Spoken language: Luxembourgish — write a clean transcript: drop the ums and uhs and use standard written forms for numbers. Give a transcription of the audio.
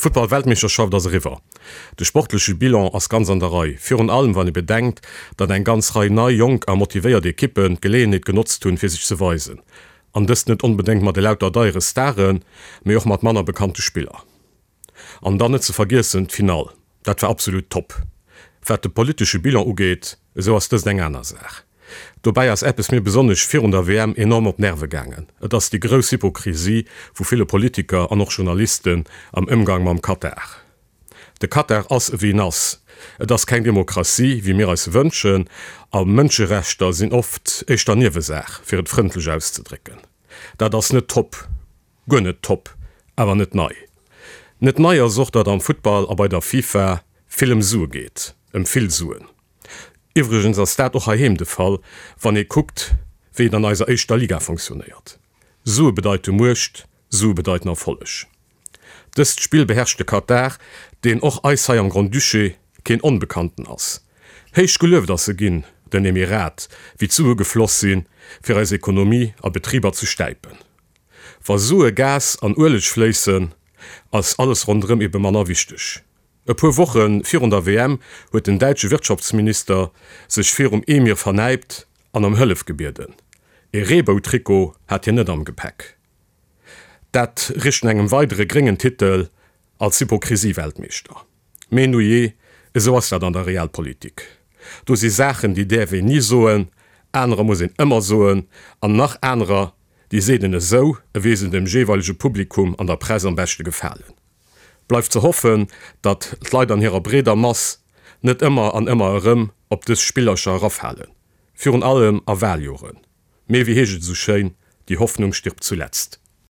D'Futtball-Weltmeeschterschaft ass eriwwer. De sportleche Bilan ass ganz an der Rei, virun allem wann ee bedenkt, datt eng ganz Rei nei, jonk a motivéiert Ekippen d'Geleeënheet genotzt hunn, fir sech ze weisen. An dëst net onbedéngt mat elauter deiere Staren, mee och mat manner bekannte Spiller. An dann net ze vergiessen d'Finall, dat war absolut top. Wat de politesche Bilan ugeet, esou ass dëst eng aner Saach. Dobäi ass eppes mir besonnesch virun der WM enorm op d'Nerve gaangen, et ass déi grouss Hypokrisie vu ville Politiker an och Journalisten am Ëmgang mam Katar. De Katar ass ewéi en ass, et ass keng Demokratie wéi mir eis se wënschen a Mënscherechter sinn oft éischter Niewesaach, fir et frëndlech auszedrécken. Dat ass net top. Guer net top, awer net nei. Net nei ass och, datt am Futtball a bei der FIFA vill ëm Sue geet, ëm vill Suen. Iwwregens ass dat och heiheem de Fall, wann ee kuckt, wéi et an eiser éischter Liga fonctionnéiert. Sue bedeite Muecht, Sue bedeiten Erfolleg. Dëst Spill beherrscht de Katar, deen och eis hei am Grand-Duché keen Onbekannten ass. Héich gelueft ass e ginn, den Emirat, wéi d'Sue gefloss sinn, fir eis Ekonomie a Betriber ze stäipen. Wa Sue, Gas an Ueleg fléissen, ass alles ronderëm ebe manner wichteg. E puer Woche virun der WM huet den däitsche Wirtschaftsminister sech virum Emir vernäipt an ëm Hëllef gebieden. E Reebou-Trikot hat hien net am Gepäck. Dat richt no engem weidere gréngen Titel als Hypokrisie-Weltmeeschter. Mee nujee, esou ass dat an der Realpolitik. Do si Saachen, déi däerf een ni soen, anerer muss een ëmmer soen, an nach anerer, déi seet een esou, ewéi se dem jeeweilege Publikum an der Press am beschte gefalen. Bleift ze hoffen, datt d'Leit an hirer breeder Mass net ëmmer an ëmmer erëm op dës Spillercher erafalen, virun allem a Waljoren. Mee wéi heescht et esou schéin, Die Hoffnung stirbt zuletzt.